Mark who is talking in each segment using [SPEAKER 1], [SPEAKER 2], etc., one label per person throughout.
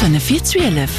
[SPEAKER 1] Fënnef vir 12.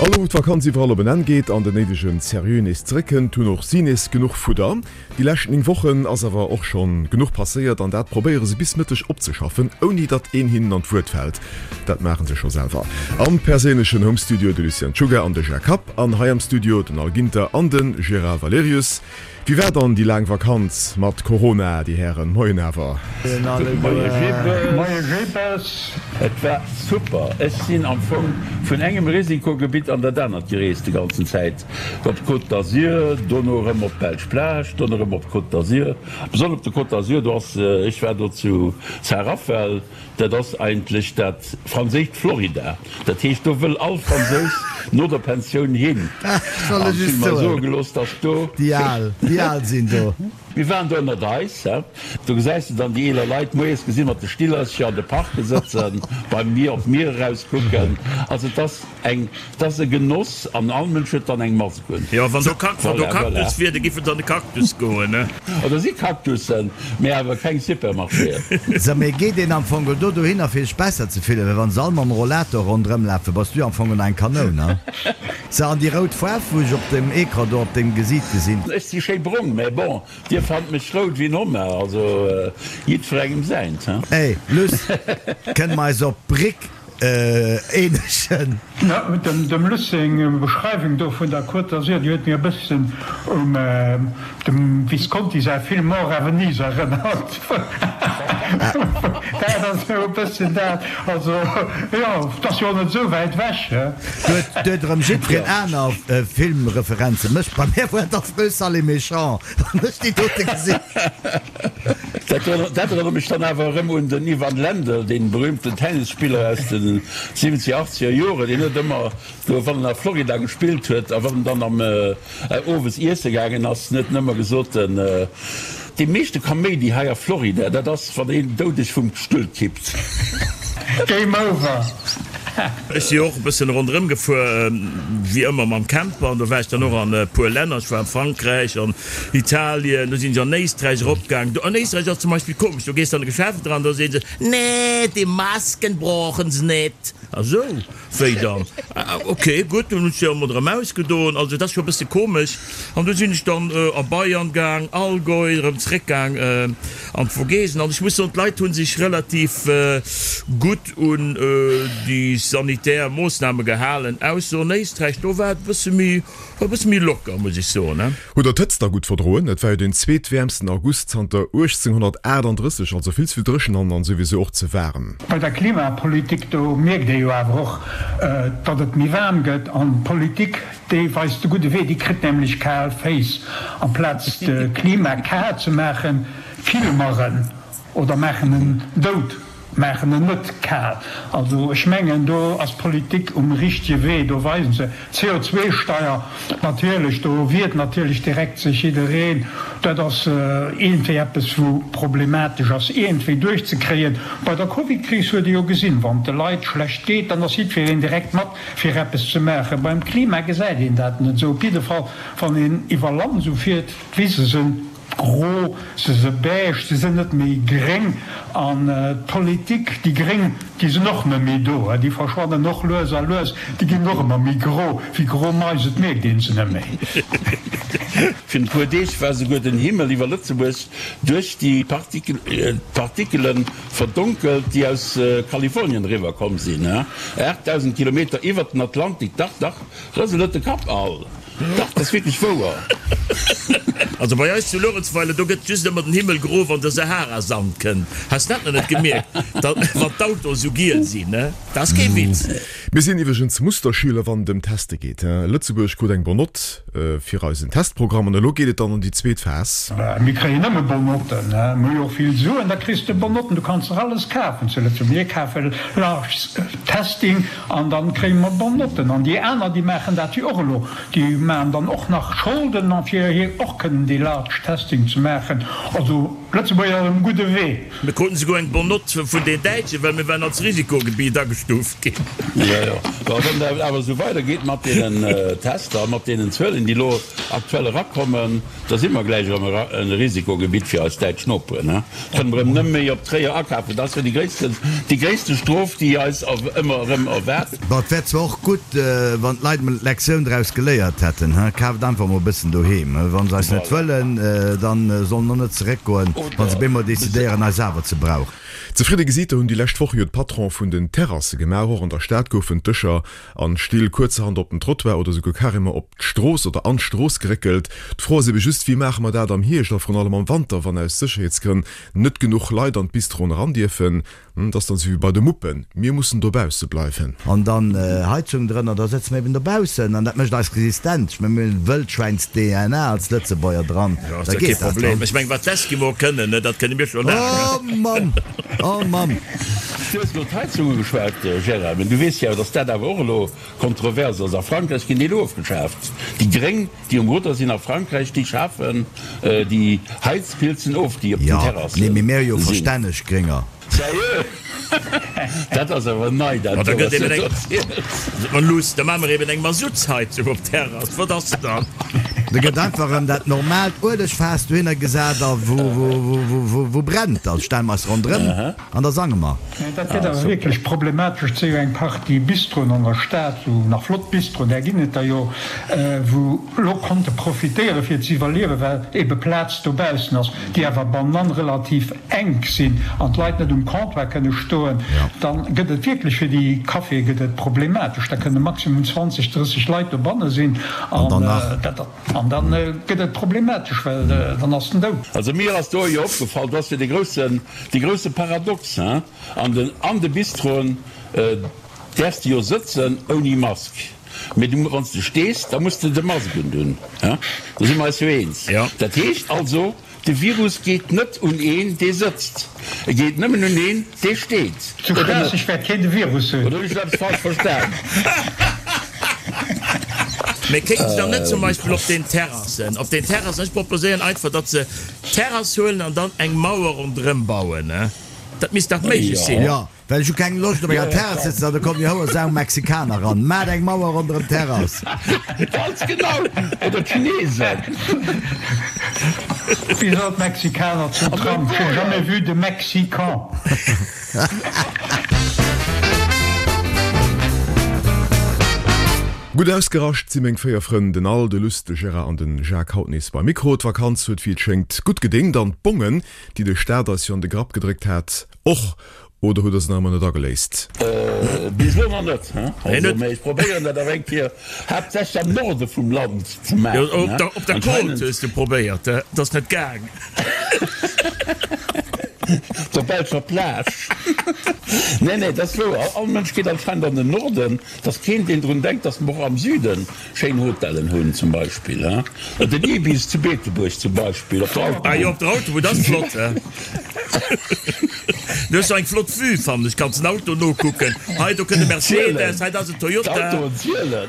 [SPEAKER 2] An elo wou d'Vakanz iwwerall op en Enn geet an den néidegen Seriö nees zeréckkënnt, hunn och si nees genuch Fudder. Déi lescht 9 Wochen ass awer och schonn genuch passéiert an dat probéiere se bis Mëtteg opzeschaffen, ouni datt een hinnen an d'Wuert fält. Dat maache se scho selwer. Am perséinlechen Home Studio de Lucien Czuga an de Jacques Happ an hei am Studio den Al Ginter an de Gérard Valerius. Wéi war dann déi laang Vakanz mat Corona, déi Hären? Moien awer.
[SPEAKER 3] Moie Jippes.
[SPEAKER 4] Moie Jippes.
[SPEAKER 3] Et war super. Ech sinn am Fong vun engem Risikogebitt an dat anert gereest déi ganzen Zäit. Op d'Côte d'Azur, dono erëm op d'belsch Plage, dono erëm op d'Côte d'Azur. Besonnesch op der Côte d'Azur, do ass, ech war do zu Saint-Raphaël, Dat ass eigentlech dat franséischt Florida. Dat heescht, do wëll all Fransous no der Pensioun hin.
[SPEAKER 5] Soll
[SPEAKER 3] An
[SPEAKER 5] ech
[SPEAKER 3] ech
[SPEAKER 5] es
[SPEAKER 3] hunn mer soe
[SPEAKER 5] soen?
[SPEAKER 3] gelooss, dass do.
[SPEAKER 5] Déi Al, déi Al sinn do.
[SPEAKER 3] Mir waren do ënnert eis, he. Do gesäis de dann déi eeler Leit moies gesi mat de Stillercher an de Parke sëtzen, beim Mier op d'Mier erauskucken. Also et ass. Eng, 't ass e Genoss an all Mënsch huet dann eng Mask un.
[SPEAKER 6] Jo, wann do wann do
[SPEAKER 3] Voilà, voilà.
[SPEAKER 6] Cactus wier, da giff et an de Cactus goen, ne?
[SPEAKER 3] Oh, do si Cactussen, mee awer keng Supermarchéen.
[SPEAKER 5] So, mee geet een am Fong do dohinner fir sech besser ze fillen? Well wann se all mam Rollator ronderëm lafen, bass du am Fong eng Kanoun, ha? So, an déi rout Faarf wou ech op dem Ecran do op dengem Gesiit gesinn.
[SPEAKER 3] Ech si schéi brong, mä bon, dir fannt mech rout wéi en Homard, also jiddwerengem säint, he?
[SPEAKER 5] Ey, Luss, kënne mer eis op d'Bréck Eenegen.
[SPEAKER 4] Dem Luss seng Beschreiwung do vun der Côte d'Azur, déi huet mir e bëssen un dem Visconti säi Film Mort à Venise erënnert. Dat ass esou e bëssen dat. Also, jo, 't ass jo och net esou wäit ewech, he?
[SPEAKER 5] Do huet erëm jiddwereen aner Filmreferenzen. Mech, bei mär war et Affreux, sale et méchant, wann ech déi dote gesinn.
[SPEAKER 3] Dat erënnert mech dann awer erëm un den Ivan Lendl, dee berühmten Tennisspiller aus de siwwenzeger, achtzeger Joren, deen huet ëmmer do, wann en a Florida gespillt huet a wann en dann am owes iesse gaangen ass, huet en ëmmer gesot, Dee meeschte Kaméidi hei a Florida, dat ass, wann een doudeg vum Stull kippt.
[SPEAKER 4] Game over.
[SPEAKER 6] Ech si och e bëssen ronderëm gefuer, wéi ëmmer mam Camper, an do war ech dann och an e puer Länner. Ech war an Frankräich, an Italien, do sinn ech an Éisträich eropgaang. Do an Éisträich ass zum Beispill komesch, do gees de an e Geschäft eran, do soe se, Nee, déi Masken brauchen se net. A sou, wéi dann? Ok, gutt, dunn hunn ech se emol erëm ausgedoen. Also et ass scho e bësse komesch. An du sinn ech dann a Bayern gaang, Allgäu, erëm zréckgaang an d'Vogesen. An ech muss soen, d'Leit hu sech relativ gutt un déi sanitär Moossname gehalen, ausser an Éisträich, do war et e bësse méi, war e bësse méi locker, muss ech soen.
[SPEAKER 2] Hutt der d'Hëtzt da gutt verdroen? Et war jo deen zweetwäermsten August zanter 1838, also vill ze vill dréchen an an souwisou och ze waarem.
[SPEAKER 4] Bei der Klimapolitik, do mierkt ee jo awer och, datt et méi waarm gëtt an d'Politik, déi weist de gudde Wee, déi kritt nämlech kal Féiss. Amplaz de Klima kal ze maachen, kille mer en oder maachen en dout. Maachen en net kal. Also ech mengen, do ass d'Politik um richtege Wee, do weisen se. CO2-Steier, natierlech, do wiert natierlech direkt sech jiddereen. Dat ass iergendwéi eppes, wou problematesch ass iergendwéi duerchzekréien. Bei der Covidkris huet ee jo gesinn, wann et de Leit schlecht geet, dann ass jiddwereen direkt mat fir eppes ze maachen. Beim Klima gesäit een dat net esou. Op jidde Fall, wann een iwwer Land esou fiert, d'Wise sinn. Gro, se se beige, se sinn net méi gréng. An d'Politik, déi Gréng, déi sinn och net méi do, déi verschwannen och lues a lues, déi ginn och ëmmer méi gro, wéi gro Mais, et mierkt een se net méi.
[SPEAKER 3] Virun e puer Deeg war souguer den Himmel iwwer Lëtzebuerg duerch déi Partikele verdonkelt, déi aus Kalifornien eriwwer komm sinn, 8.000 Kilometer iwwert den Atlantik. Dach, dach, rësel net de Kapp al! Dach, dat ass wierklech wouer.
[SPEAKER 6] Also bei eis zu Luerenzweiler, do gëtt just ëmmer den Himmel gro, wann de Sahara-Sand kënnt. Has dat nach net gemierkt, da wann d'Autoen sou giel sinn, ne? Dat ass kee Witz.
[SPEAKER 2] Mir sinn iwwregens Musterschüler wann et ëm Teste geet. Lëtzebuerg krut eng bon Note fir eisen Testprogramm an elo geet et dann an déi zweet Phas.
[SPEAKER 4] Mir kréien nëmme bon Notten. Mir hu jo och vill Suen, da kriss de bon Notten. Du kanns der alles kafen zu Lëtzebuerg. Mir kafe large testing. An dann kréie mer bon Notten. An déi aner, déi maachen dat jo och elo. Déi maachen dann och nach Scholden, an fir hir och kënnen dee large testing ze maachen. Also Lëtzebuerg ass um gudde Wee.
[SPEAKER 6] Mir kruten souguer eng bonne Note vun den Däitschen, well mir waren als Risikogebiet agestuuft ginn.
[SPEAKER 3] Jo, jo. Bon, wann dat awer esou weidergeet mat deenen Tester, mat deenen Zuelen, déi elo aktuell erakommen. Da si mer gläich erëm e Risikogebitt fir eis däitsch Noperen. Kënne mer erëm nëmme méi op Tréier akafen. Dat ass jo déi gréissten, déi gréisste Strof, déi eis ëmmer erëm erwaart.
[SPEAKER 5] Bon, et wär zwar och gutt, wann d'Leit emol d'Lektioun draus geléiert hätten, he? Kaaft einfach emol e bëssen doheem. Wa se eis net wëllen, da sollen och net zeréckgoen, wa se bemol decidéieren, eis awer ze brauchen.
[SPEAKER 2] Zefridde Gesiiter hunn déi lescht Woche jo d'Patrone vun den Terrasse gemaach. Och an der Stad goufen d'Dëscher an d'Still kuerzerhand op den Trottoir oder souguer carrément op d'Strooss oder an d'Strooss geréckelt. D'Fro ass ebe just, Wéi maache mer dat am Hierscht a vrun allem am Wanter, wann aus Sécherheetsgrënn net genuch Leit an d'Bistroen eran dierfen? Dat ass dann esou wéi bei de Muppen, mir mussen dobausse bleiwen.
[SPEAKER 5] An dann Heizung drënner, da sëtze mer eben dobaussen an dat mécht eis resistent. Ech mengen, mir hunn Wëldschwäins-DNA als Lëtzebuerger dran,
[SPEAKER 6] Jo, ass da kee geet dat, Problem. Ech mengen, wat d'Eskimoe kënnen, dat kënne mir scho laang.
[SPEAKER 5] Oh Mamm! Oh Mamm!
[SPEAKER 3] Du hues elo d'Heizung ugeschwat, Gérard, mä du weess jo, datt dat awer och elo Kontrovers ass. A Frankräich ginn déi elo ofgeschaaft. Déi Gréng, déi um Rudder sinn a Frankräich, déi schafen déi Heizpilzen of, déi op den
[SPEAKER 5] Jo,
[SPEAKER 3] Terrasse
[SPEAKER 5] nee, mee mir hu jo sinn. verstänneg Grénger.
[SPEAKER 3] Sérieux? Dat ass awer nei, dat
[SPEAKER 6] Ma da
[SPEAKER 3] do,
[SPEAKER 6] gëtt
[SPEAKER 3] wat
[SPEAKER 6] eben
[SPEAKER 3] du
[SPEAKER 6] eng,
[SPEAKER 3] do erziels.
[SPEAKER 6] Ma luuss, da maache mer eben eng Masuttsheizung op d'Terrass. Wat ass dann?
[SPEAKER 5] Da gëtt einfach erëm dat normaalt Uelegfaass dohinner gesat a wou, wou, wou, wou brennt, da stelle mer eis ronderëm. An da sange mer.
[SPEAKER 4] Dat gëtt awer wierklech problematesch. Et si jo eng Partie Bistroen an der Stad, esou nach flott Bistroen, där ginn et der jo, wou lo konnte profitéiere fir ze iwwerliewen, well ebe Plaz dobaussen ass, déi awer bannen relativ enk sinn an d'Leit net um Comptoir kënne stoen. Dann gëtt et wierklech fir déi Caféë gëtt et problematesch. Da kënne maximum 20, 30 Leit dobanne sinn
[SPEAKER 5] An dann nach.
[SPEAKER 4] dat. An dann gëtt et problematesch, well dann ass den dout.
[SPEAKER 3] Also mir ass do jo opgefall, do ass jo dee groussen, dee grousse Paradox, hein, an den, an de Bistroen däerfs de jo sëtzen ouni Mask, mee du, wann s de stees, da muss de de Mask undunn, hein, do si mer eis jo eens. Dat heescht also, De Virus geet net un een, dee sëtzt. E geet nëmmen un een, dee steet.
[SPEAKER 4] Zu
[SPEAKER 3] Oder net?
[SPEAKER 4] Schraasseg wäert keen de Virus hunn.
[SPEAKER 3] Oder hunn ech eppes falsch verstan?
[SPEAKER 6] Mee kéinte se dann net zum Beispill op den Terrassen, op den Terrassen, ech proposéieren einfach, datt se d'Terrass huelen an dann eng Mauer ronderëm bauen, dat misst dach méiglech sinn.
[SPEAKER 5] Jo. Well ech hu keng Loscht op enger Terrass sëtzen an da kommen déi houer Sau Mexikaner ran. Maacht eng Mauer ronderëm d'Terrass.
[SPEAKER 3] Ganz genau! Oder d'Chinesen.
[SPEAKER 4] Wéi soll d'Mexikaner zum Trump? J'ai jamais vu de Mexican.
[SPEAKER 2] Gutt ausgerascht si meng 4 Frënn, den Al, de Luss, de Gérard an den Jacques haut nees beim Mikro. D'Vakanz huet wéi et schéngt gutt gedéngt an d'Bongen, déi de Staat eis jo an de Grapp gedréckt hat, och. Oder hutt der se nach ëmmer net ageléist?
[SPEAKER 3] Bis elo nach net, also, mee ech probéieren dat awer eng Kéier, haaptsächlech am Norde vum Land ze maachen.
[SPEAKER 6] Jo, op der Côte hues du probéiert, et ass net gaang.
[SPEAKER 3] Op der belscher Plage. Nee, nee, dat ass wouer, all Mënsch geet anscheinend an den Norden, et ass keen, deen drun denkt, datt mer och am Süden Schéin Hotellen hunn zum Beispill, he? Den Ibis zu Beetebuerg zum Beispill, op der
[SPEAKER 6] Autobunn. Ah jo, op der Autobunn, dat ass flott, he? Du hues jo eng flott Vue, fannen ech. Kanns den Auto nokucken. Hei, do kënnt e Mercedes, hei, dat ass en Toyota.
[SPEAKER 3] D'Autoen zielen.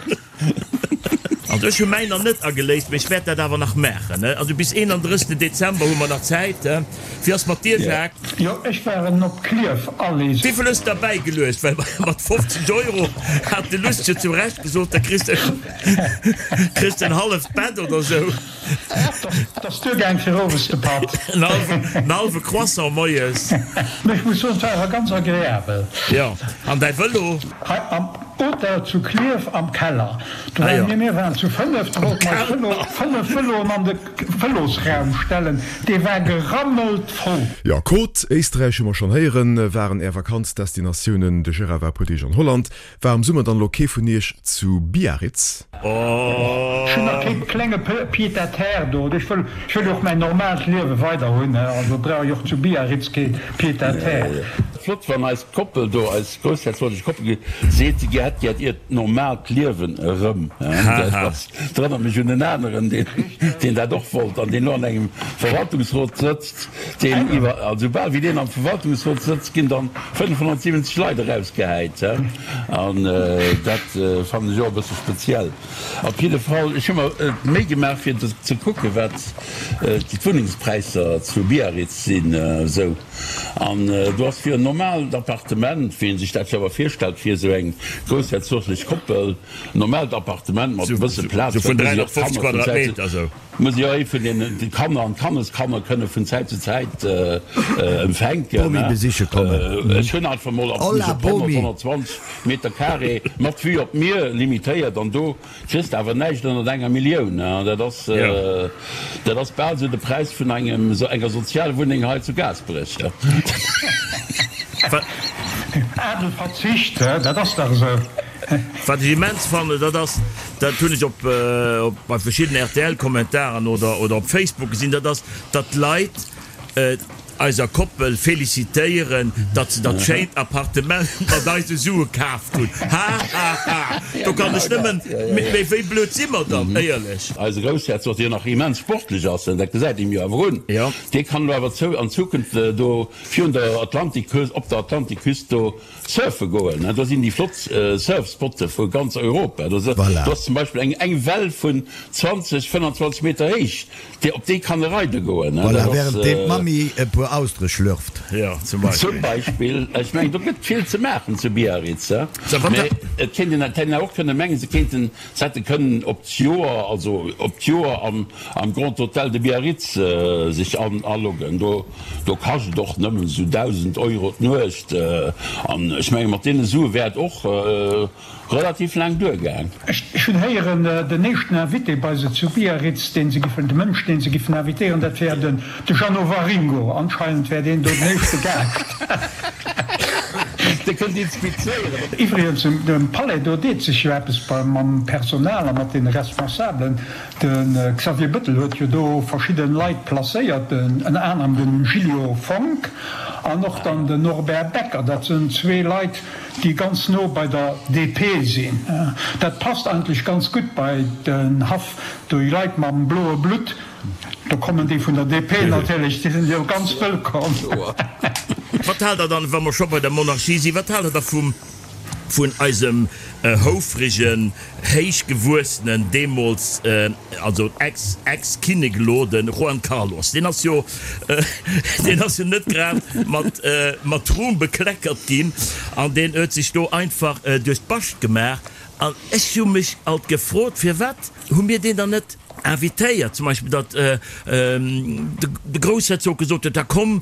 [SPEAKER 6] Also ech hu mäin nach net ageléist, mee ech wäert dat awer nach maachen, he? Also bis 31. Dezember hu mer nach Zäit, he? Wéi ass mat dir, Jacques?
[SPEAKER 4] Jo, ech waren op Klierf Allee.
[SPEAKER 6] Wéivill hues de derbäi geluecht? Well mat 50 Euro hat de Luss jo zu Recht gesot, da kriss de kriss de en halleft Bett oder sou.
[SPEAKER 4] Dat ass duergaang fir owes de Patt.
[SPEAKER 6] En hallwe Croissant moies.
[SPEAKER 4] Mee ech muss soen, et war awer ganz agreabel.
[SPEAKER 6] Jo, an däi Vëlo?
[SPEAKER 4] Hei am Hotel zu Klierf am Keller. Do waren mir, mir waren zu 5, do wollten mer eis Vëlo, 5 Vëloen an de Vëlosraum stellen, dee war gerammelt voll.
[SPEAKER 2] Jo, Côte, Éisträich hu mer schonn héieren, waren är Vakanzdestinatiounen. De Gérard war e puer Deeg an Holland. War am Summer dann elo kee vun iech zu Biarritz?
[SPEAKER 4] Ech hunn nach kee klenge Pied-à-terre do. Ech wëll, ech wëll jo och mäin normaalt Liewe weider hunn, also brauch ech och zu Biarritz kee Pied-à-terre.
[SPEAKER 3] Flott wann eis Koppel do, eis groussherzoglech Koppel seet, si hätt gär hiert normaalt Liewen erëm. Dat erënnert mech un en aneren, deen dat och wollt an deen elo an engem Verwaltungsrot sëtzt, deen iwwer, also soubal wéi deen am Verwaltungsrot sëtzt, ginn dann 570 Leit erausgehäit. An dat fannen ech och e bësse speziell. Op jidde Fall, ech hu mer d'Méi gemaach fir ze kucken, wat d'Wunnengspräisser zu Biarritz sinn esou. An do ass virun. Normaalt Appartement, wéi een sech dat jo awer virstellt fir esou eng groussherzoglech Koppel, normaalt Appartement mat e bësse Plaz,
[SPEAKER 6] Sou vun 350 Quadratmeter esou.
[SPEAKER 3] Muss jo ee vun den Kanner an d'Kanneskanner kënne vun Zäit zu Zäit empfänken.
[SPEAKER 5] Bomi besiche kommen.
[SPEAKER 3] Ech hunn einfach mol op 100, 120 Meter carré mat Vue op d'Mier limitéiert an do kriss de awer näischt ënnert enger Millioun. Dat ass, dat ass bal esou de Präis vun engem, enger Sozialwunneng hei zu Gaasperech.
[SPEAKER 4] Adel Verzicht, dat ass dach esou.
[SPEAKER 6] Wat ech immens fannen, dat ass, dat hunn ech op bei verschiddenen RTL-Kommentaren oder oder op Facebook gesinn, dat ass, datt d'Leit eiser Koppel felicitéieren, datt se dat schéint Appartement mat eise Sue kaaft hunn. Ha ha ha! Do kann ech nëmmen, mee wéi blöd si mer dann, éierlech?
[SPEAKER 3] Eise Groussherzog, deen nach immens sportlech ass, dat gesäit een jo awer un, dee kann elo awer zou an Zukunft do virun der Atlantikküst, op der Atlantikküst do Surfe goen, do sinn déi flott Surfspotte vu ganz Europa. Do ass zum Beispill eng eng Well vun 20, 25 Meter héich, déi op déi kann e reide goen.
[SPEAKER 5] Voilà, während deem d'Mammi e puer Austere schlürft.
[SPEAKER 6] Jo, zum Beispill.
[SPEAKER 3] Zum Beispill. Ech mengen, do gëtt vill ze maachen zu Biarritz. Mee et kéint een, et hätt een och kënne mengen, se kéinten, se hätte kënnen op d'Joer, also op d'Joer am am Grand Hôtel de Biarritz sech aloggen. Do Do kascht et och nëmmen esou 1.000 Euro d'Nuecht. An ech menge mat deene Sue wär et och relativ laang duergaang.
[SPEAKER 4] Ech hunn héieren, den éischten Invité bei se zu Biarritz, deen se giffen, de Mënsch, deen se giffen invitéieren, dat wär den de Jeannot Waringo. Anscheinend wär deen do den éischte Gaascht.
[SPEAKER 3] Dee kënnt inspizéieren.
[SPEAKER 4] Iwwregens, um Palais do deet sech jo eppes mam Personal a mat deene Responsabelen. De Xavier Bettel huet jo do verschidde Leit placéiert, ënner anerem de Gilio Fonck an och dann den Norbert Becker. Dat sënn zwee Leit, déi ganz no bei der DP sinn. Dat passt eigentlech ganz gutt bei den Haff, déi Leit mam bloe Blutt, do kommen déi vun der DP natierlech, déi sinn jo ganz wëllkomm.
[SPEAKER 6] Wat haalt der dann, wa mer scho bei der Monarchie sinn, wat haalt der da vum vun eisem houfregen, héichgewuessenen, deemools also ex, ex-Kinnek elo, de Juan Carlos, deen ass jo, deen ass jo net grad mat, mat Ruhm bekleckert ginn an deen huet sech do einfach duerch d'Bascht gemaach. An ech hu mech alt gefrot, firwat hu mir deen dann net invitéiert, zum Beispill datt de Groussherzog gesot huet, da komm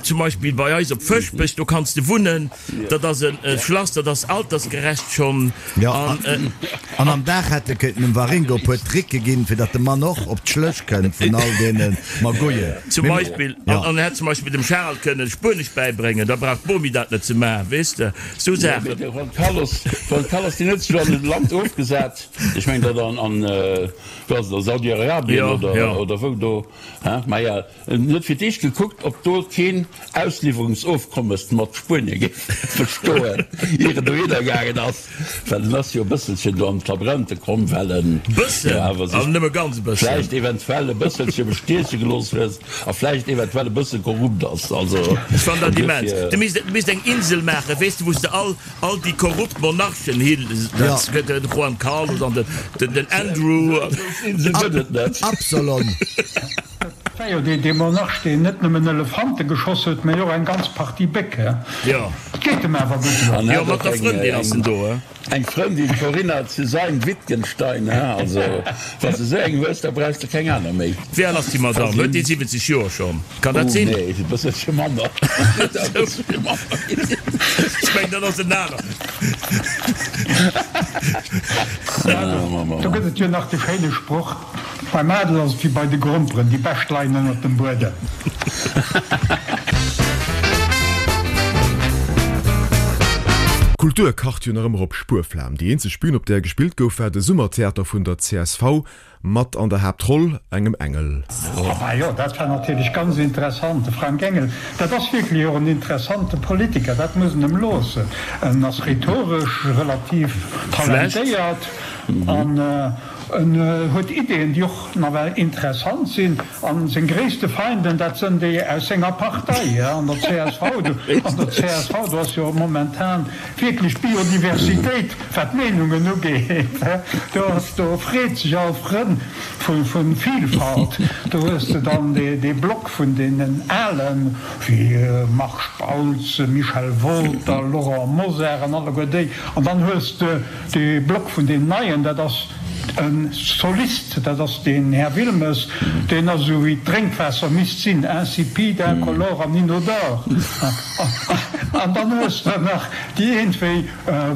[SPEAKER 6] zum Beispill bei eis op Fëschbech, do kanns de wunnen, dat ass e Schlass, dat ass altersgerecht schonn.
[SPEAKER 5] Jo, an am Dag hätt e kéinten dem Waringo e puer Tricke ginn, fir datt de Mann och op d'Schlëch kënnt vun all deene Magouillen.
[SPEAKER 6] Zum Beispill, an en hätt zum Beispill dem Charel kënnen Spuenesch bäibréngen, da brauch d'Bomi dat net ze maachen, weess de, sou Saachen.
[SPEAKER 3] De Juan Carlos, Juan Carlos, deen huet sech elo an e Land ofgesat, ech mengen dat an, an, wou ass et, a Saudi-Arabien oder, oder wou do, hein, maja. En huet fir d'éischt gekuckt, ob do keen Ausliwwerungsofkommes mat Spuenie géif bestoen, ier en dohinner gaangen ass, well en ass jo e bësselchen do an d'Labränte komm, well en jo awer sech vläicht eventuell e bësselche bestieche gelooss huet a vläicht eventuell e bësse korrupt ass. Also
[SPEAKER 6] Ech fannen dat immens. Du misst eng Insel maachen, weess de, wou s de all All déi korrupt Monarchen hin, dat gëtt den Juan Carlos an den Andrew.
[SPEAKER 3] Insel gëtt et net.
[SPEAKER 5] Absalon.
[SPEAKER 4] Dat war jo dee Monarch, deen net nëmmen Elefante geschoss huet, mä och eng ganz Partie Béck.
[SPEAKER 6] Jo.
[SPEAKER 4] Et geet em awer gutt elo.
[SPEAKER 6] Jo, mat der Frëndin ass en do, he?
[SPEAKER 3] Eng Frëndin, d'Corinna zu Sayn-Wittgenstein, he? Also, wann s de esou eng hues, da brauchs de keng aner méi.
[SPEAKER 6] Wéi al ass déi Madame? Huet déi 70 Joer schonn? Kann dat sinn?
[SPEAKER 3] Oh nee, e bësselche manner.
[SPEAKER 6] Ech mengen, dat ass en aner.
[SPEAKER 4] Do gëtt et jo nach de schéine Sproch, Beim Adel ass et wéi bei de Gromperen, déi bescht leien ënnert dem Buedem.
[SPEAKER 2] D'Kultur kacht jo nach ëmmer op Spuerflam. Déi eenzeg Bühn, op där gespillt gouf, war de Summertheater vun der csv. Mat an der Haaptroll engem Engel.
[SPEAKER 4] Ah jo, dat war natierlech ganz interessant. De Frank Engel, dat ass wierklech och en interessante Politiker, dat muss een em loossen. En ass rhetoresch relativ talentéiert an. En huet Ideeën, déi och nawell interessant sinn. A seng gréisste Feinden, dat sënn déi aus senger Partei, an der csv. An der csv, do ass jo momentan wierklech Biodiversitéit, wat d'Meenungen ugeet. Do ass, do freet sech all Frënn vu Vielfalt. Do hues de dann dee Block vun deenen Alen, wéi Marc Spautz, Michel Wolter, Laurent Mosar an alleguer déi. An dann hues de dee Block vun deenen Neien, dat ass e Solist, dat ass deen Här Wilmes, deen ass esou wéi d'Drénkwaasser misst sinn, insipide, incolore an inodore. An dann hues de nach déi iergendwéi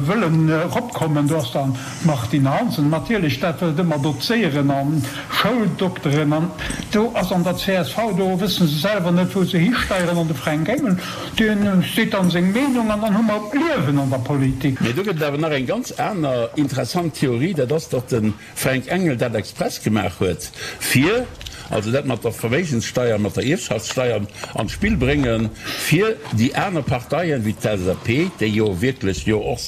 [SPEAKER 4] wëllen eropkommen, do ass dann d'Martine Hansen natierlech, dat wëllt ëmmer dozéieren an Schouldokteren an do ass an der csv, do wësse se selwer net wou se histeieren an de Fränk Engel, deen seet dann seng Meenung an dann hu mer Liewen an der Politik.
[SPEAKER 3] Mee do gëtt et awer nach eng ganz aner interessant Theorie, dat ass, datt de Fränk Engel dat express gemaach huet, fir, also dat mat der Verméigenssteier, mat der Ierfschaftssteier an d'Spill bréngen, fir déi aner Parteien, wéi d'LSAP, déi jo wierklech jo och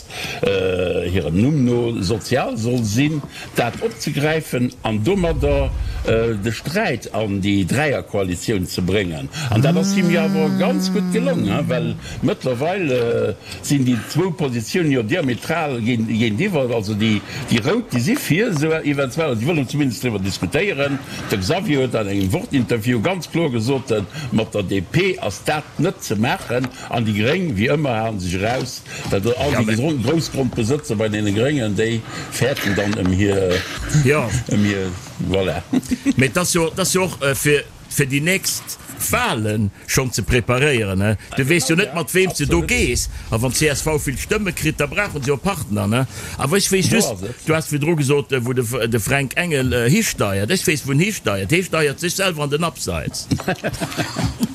[SPEAKER 3] hirem Numm no sozial soll sinn, dat opzegräifen an domadder de Sträit an déi Dräierkoalitioun ze bréngen. An dat ass him jo awer ganz gutt gelong, well mëttlerweil sinn déi zwou Positiounen jo diametral géintiwwer. Also déi Rout, déi si fir esou eventuell, déi wëllen zumindest driwwer diskutéieren. De Xavier huet an engem Wort-Interview ganz kloer gesot, mat der DP ass dat net ze maachen. An déi Gréng, wéi ëmmer, halen sech eraus. Well do all déi Groussgrondbesëtzer bei deene Gréngen, déi fäerten dann ëm hir, ëm hir, voilà.
[SPEAKER 6] Mee et ass jo, et ass jo och fir, fir déi nächst Wahlen schonn ze preparéieren, ne? Du weess jo net, mat weem s de do gees. A wann csv vill Stëmme kritt, da brauchen se jo Partner, ne? Awer ech weess just, du has virdru gesot, wou de, de Fränk Engel histeiert. Ech weess, wou en histeiert. Hee steiert sech selwer an den Abseits.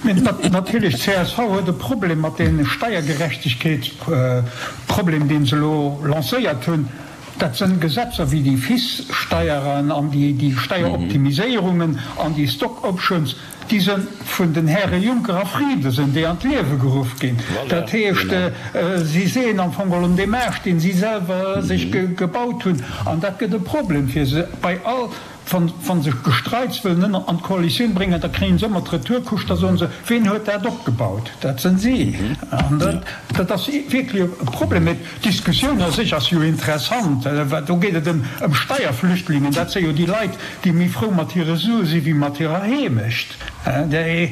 [SPEAKER 4] Mee natierlech, csv huet e Problem mat deem Steiergerechtegkeetsproblem, deen se elo lancéiert hunn. Dat sënn Gesetzer wéi déi FIS-Steieren an déi Steieroptimiséierungen an déi Stock Options, déi sënn vun den Häre Juncker a Frieden sënn déi an d'Liewe geruff ginn. Dat heescht, si seeën am Fong geholl un deem Aascht, deen si selwer sech gebaut hunn. An dat gëtt e Problem fir se bei all Wa se Gestreits wëllen ënner an d'Koalitioun bréngen, da kréien se ëmmer d'Retourkutsch, da soen se, Ween huet dat opgebaut? Dat sënn si. An dat ass wierklech e Problem. Mee d'Diskussioun a sech ass jo interessant, well do geet et ëm Steierflüchtlingen. Dat si jo déi Leit, déi méi frou mat hire Sue si wéi mat hirer Heemecht. Déi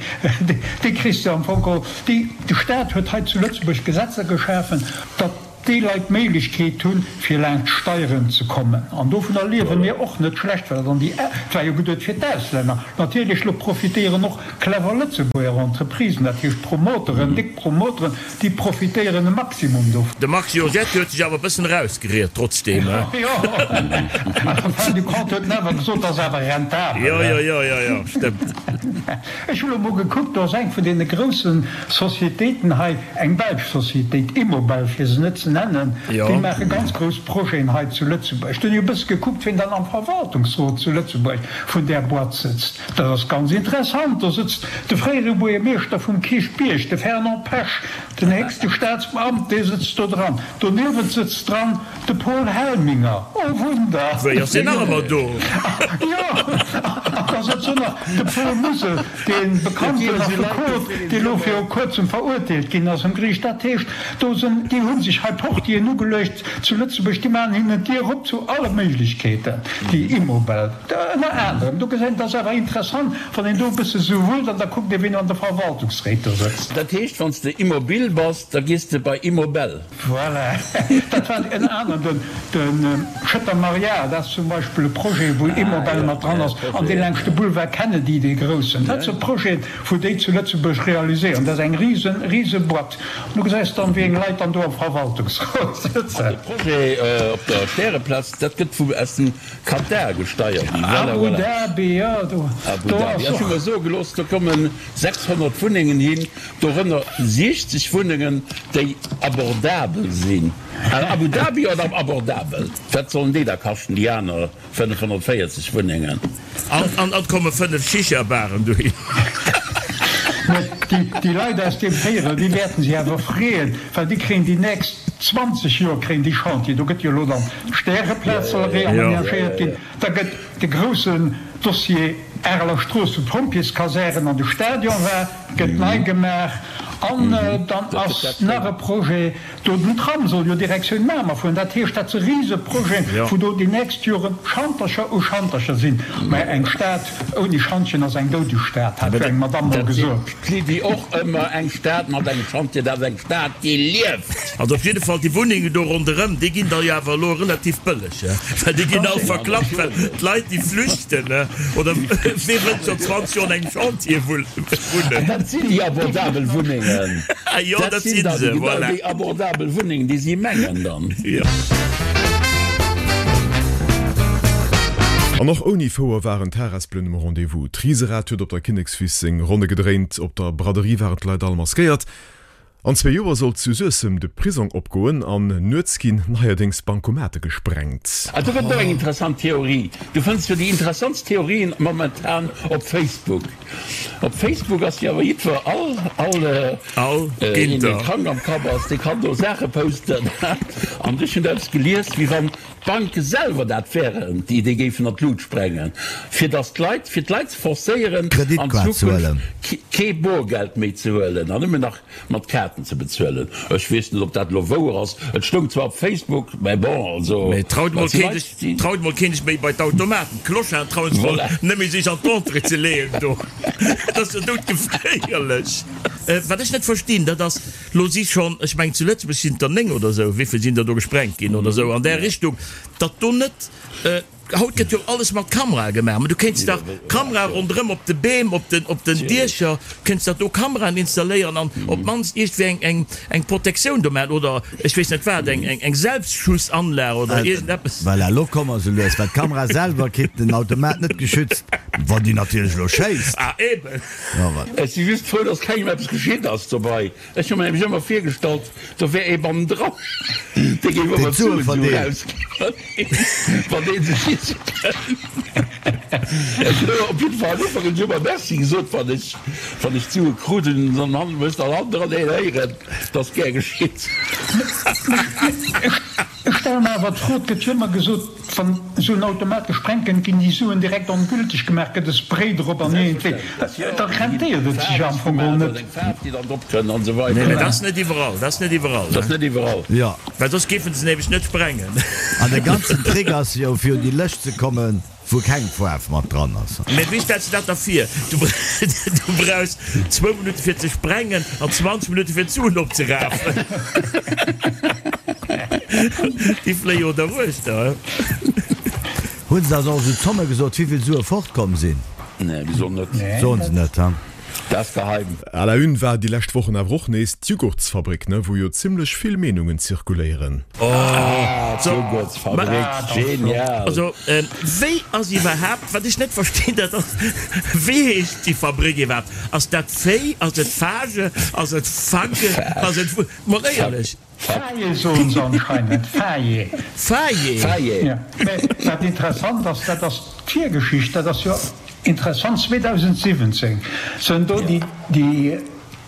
[SPEAKER 4] kriss de am Fong geholl, déi, de Staat huet hei zu Lëtzebuerg Gesetzer geschafen, datt, déi Leit d'Méiglechkeet hunn, fir laanscht d'Steieren ze kommen. An dovunner liewe mir och net schlecht, well dann déi, et war jo geduet fir d'Auslänner, natierlech, elo profitéieren och clever Lëtzebuerger Entreprisen, dat heescht Promoteren, déck Promoteren, déi profitéieren e Maximum dovun.
[SPEAKER 6] De Marc Giorgetti huet sech awer e bëssen erausgeriet, trotzdeem, he?
[SPEAKER 4] Jo, en fin de compte huet en awer gesot, ass awer rentabel,
[SPEAKER 6] he? Jo, jo, jo, jo, jo, stëmmt.
[SPEAKER 4] Ech hu lo mol gekuckt, do ass eng vun deene groussen Sociétéiten hei, eng belsch Sociétéit, Immobel fir se net ze nennen, déi maache ganz grouss Projeten hei zu Lëtzebuerg. Do hunn ech e bësse gekuckt, wien dann am Verwaltungsrot zu Lëtzebuerg vun där Boîte sëtzt. Dat ass ganz interessant, do sëtzt de fréiere Buergermeeschter vum Kierchbierg, de Fernand Pesch, den héchste Staatsbeamten, dee sëtzt do dran. Doniewent sëtzt dran De Paul Helminger, oh Wunder!
[SPEAKER 6] Wéi, ass deen nach ëmmer do?
[SPEAKER 4] Jo, an da sëtzt do nach de Paul Musel, dee bekannten Affekot, dee lo viru kuerzem verurteelt ginn ass um Geriicht. Dat heescht, do sinn, déi hu sech hei Portieren ugeluecht zu Lëtzebuerg, déi maachen hinnen d'Dier op zu alle Méiglechkeeten, déi Immobel ënner anerem. Do gesäit een, et ass awer interessant, wann een do e bësse sou wullt an da kuckt ee wien an de Verwaltungsréit do sëtzt.
[SPEAKER 3] Dat heescht, wann s de immobil bass, da gees de bei Immobel.
[SPEAKER 4] Voilà, dat war ënner anerem de Schëtter Maria, dat ass zum Beispill e Projet, wou Immobel mat dran ass, an dee laanscht de Boulevard Kennedy, dee groussen. Dat si Projeten, wou déi zu Lëtzebuerg realiséieren. Dat ass eng risen, rise Boîte. An du gesäis dann, wéi eng Leit dann do am Verwaltungsrot sëtzen.
[SPEAKER 3] An de Projet op der Stäreplaz, dat gëtt vu aus dem Katar gesteiert. Voilà,
[SPEAKER 4] voilà. Abu Dhabi, jo, do
[SPEAKER 3] Abu Dhabi.
[SPEAKER 4] ass
[SPEAKER 3] Ech hu
[SPEAKER 4] och.
[SPEAKER 3] mer soe gelooss, do kommen 600 Wunnengen hin. Dorënner 60 Wunnengen, déi abordabel sinn. Abu Dhabi oder abordabel? Wat sollen déi da kaschten, déi aner 540 Wunnengen?
[SPEAKER 6] An et komme 5 Shisha-Baren dohin.
[SPEAKER 4] Mä déi Leit aus deem Véierel, déi wäerten sech awer freeën, well déi kréien déi nächst. 20 Joer kréien déi Chantier. Do gëtt jo elo dann d'Stäreplaz soll reamenagéiert ginn. Da gëtt de groussen Dossier Areler Strooss, wou d'Pompjeeskasären an de Stadion war, gëtt nei gemaach. An dann ass nach e Projet do, den Tram soll jo Direktioun Mamer fueren. Dat heescht, dat si Riseprojeten, wou do déi nächst Jore Schantercher u Schantercher sinn. Mä eng Stad ouni Schantjen ass eng doudeg Stad, hat jo eng Madamm mol gesot.
[SPEAKER 3] D'Lydie och ëmmer, Eng Stad mat engem Schantje, dat ass eng Stad, déi lieft!
[SPEAKER 6] Also op jidde Fall, déi Wunnengen do ronderëm, déi ginn da jo awer elo relativ bëlleg, well déi ginn all verklappt, well d'Leit, déi flüchten, oder wee wëllt scho 20 Joer an engem Chantier wunnen?
[SPEAKER 3] Dat sinn déi abordabel Wunnengen.
[SPEAKER 6] Jo, dat si se, voilà.
[SPEAKER 3] Déi abordabel Wunnengen, déi si mengen dann.
[SPEAKER 6] Jo.
[SPEAKER 2] An och ouni Fouer waren d'Harespelen um Rendez-vous. D'Riserad huet op der Kinnekswiss seng Ronne gedréint, op der Braderie waren d'Leit all maskéiert. An zwee Joer soll zu Suessem de Prisong opgoen an nuets ginn neierdéngs Bankomate gesprengt.
[SPEAKER 3] Ah, do gëtt et och eng interessant Theorie. Du fënns jo déi interessantst Theorien momentan op Facebook. Op Facebook ass jo awer jiddwer, all, all,
[SPEAKER 6] All
[SPEAKER 3] een, dee
[SPEAKER 6] Ginter.
[SPEAKER 3] krank am Kapp ass, dee kann do Saache posten. An ech hunn eppes gelies, wéi wann d'Banke selwer dat wären, déi déi géifen an d'Lut sprengen, fir datt d'Leit, fir d'Leit ze forcéieren, an
[SPEAKER 5] Kreditkaart ze huelen.
[SPEAKER 3] Zukunft kee Borgeld méi ze huelen an nëmmen nach mat Kaarten ze bezuelen. Ech weess net, ob dat elo wouer ass. Et stoung zwar op Facebook, mä bon, also,
[SPEAKER 6] Mee traut
[SPEAKER 3] dat
[SPEAKER 6] mol
[SPEAKER 3] si
[SPEAKER 6] keen
[SPEAKER 3] Leit,
[SPEAKER 6] sech,
[SPEAKER 3] déi.
[SPEAKER 6] traut mol keen sech méi bei d'Automaten. D'Clocharden trauen sech mol
[SPEAKER 3] Voilà.
[SPEAKER 6] net méi sech an d'Entrée ze leeën do. Dat ass jo doudgeféierlech. Wat ech net verstinn, dat ass, lo si schonn, ech mengen zu Lëtzebuerg sinn et der 9 oder esou, wéivill sinn der do gesprengt ginn oder esou an där Richtung, datt do net, Haut gëtt jo alles mat Kamerae gemaach, mä du kéints dach Kamerae ronderëm op de Beem, op den, op den Diecher, kéints dach do Kameraen installéieren an op d'mannst iergendwéi eng, eng, eng Protektioun do maachen oder ech weess net wat, eng, eng, eng Selbstschussanlag oder iergendeppes.
[SPEAKER 5] Voilà, elo komme mer sou lues, well d'Kamera selwer kritt den Automat net geschützt, wann déi natierlech elo schéisst.
[SPEAKER 6] Ah, eben.
[SPEAKER 5] Jo, wat?
[SPEAKER 3] Ech si just frou, dass kengem eppes geschitt ass dobei. Ech hu mer nämlech ëmmer virgestallt, do wär ee bannendran, dee géif ëmmer
[SPEAKER 5] Deen d'Sue
[SPEAKER 3] d'Suen esou
[SPEAKER 5] verdeelt.
[SPEAKER 3] erausginn, wann dee sech schiessen kënnt. Ech hunn op jidde Fall am Ufank hunn ech ëmmer Merci gesot, wann ech, wann ech d'Sue krut hunn, dann han ech dann hannendran een héieren, 't ass gär geschitt.
[SPEAKER 4] Ech stelle mer awer d'Fro, et gëtt jo ëmmer gesot, Wann esou en Automat gesprengt gëtt, ginn déi Suen direkt ongülteg gemaach, gëtt e Spray drop an iergendwéi, da rentéiert et sech am Fong geholl net.
[SPEAKER 6] Nee, mä dat ass net iwwerall, dat ass net iwwerall,
[SPEAKER 3] Dat ass net iwwerall.
[SPEAKER 5] Jo.
[SPEAKER 6] Well soss géifen se nämlech net sprengen.
[SPEAKER 5] An de ganzen Trick ass jo, fir un déi Lëscht ze kommen, wou keng Faarf mat dran ass.
[SPEAKER 6] Mä wéi stells de dat da vir? Du brauchs zwou Minutte fir ze sprengen an 20 Minutte fir d'Suen opzerafen. Déi fléie jo derwuechter.
[SPEAKER 5] Hunn se da och esou Zomme gesot, wéivill Sue fortkomm sinn?
[SPEAKER 3] Nee, wéi soll net.
[SPEAKER 5] Soen se net, ha?
[SPEAKER 3] Dat ass geheim.
[SPEAKER 2] À la une war déi lescht Wochen awer och nees d'Jugurtsfabrik, ne, wou jo zimlech vill Meenungen zirkuléieren.
[SPEAKER 3] Ah, d'Jugurtsfabrik, genial!
[SPEAKER 6] Also, wéi ass iwwerhaapt, wat ech net verstinn, dat ass, wéi heescht déi Fabrik iwwerhaapt? Ass dat Féi, ass et Fage, ass et Fagge, ass et, mol éierlech.
[SPEAKER 4] Faye soen se anscheinend, Faye.
[SPEAKER 6] Faye.
[SPEAKER 3] Faye.
[SPEAKER 4] Jo, mä wat interessant ass, dat ass d'Virgeschicht, dat ass jo interessant, 2017 sënn do déi déi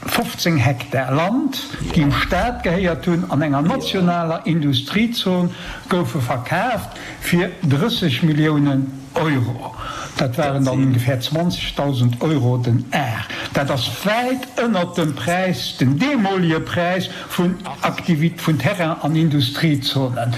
[SPEAKER 4] 15 Hektar Land, déi dem Staat gehéiert hunn, an enger nationaler Industriezon goufe verkaaft fir 30 Milliounen Euro. Dat waren dann ongefähr 20.000 Euro den Ar. Dat ass wäit ënnert dem Präis, dem deemolige Präis vun Aktivit vun Terrain an Industriezonen.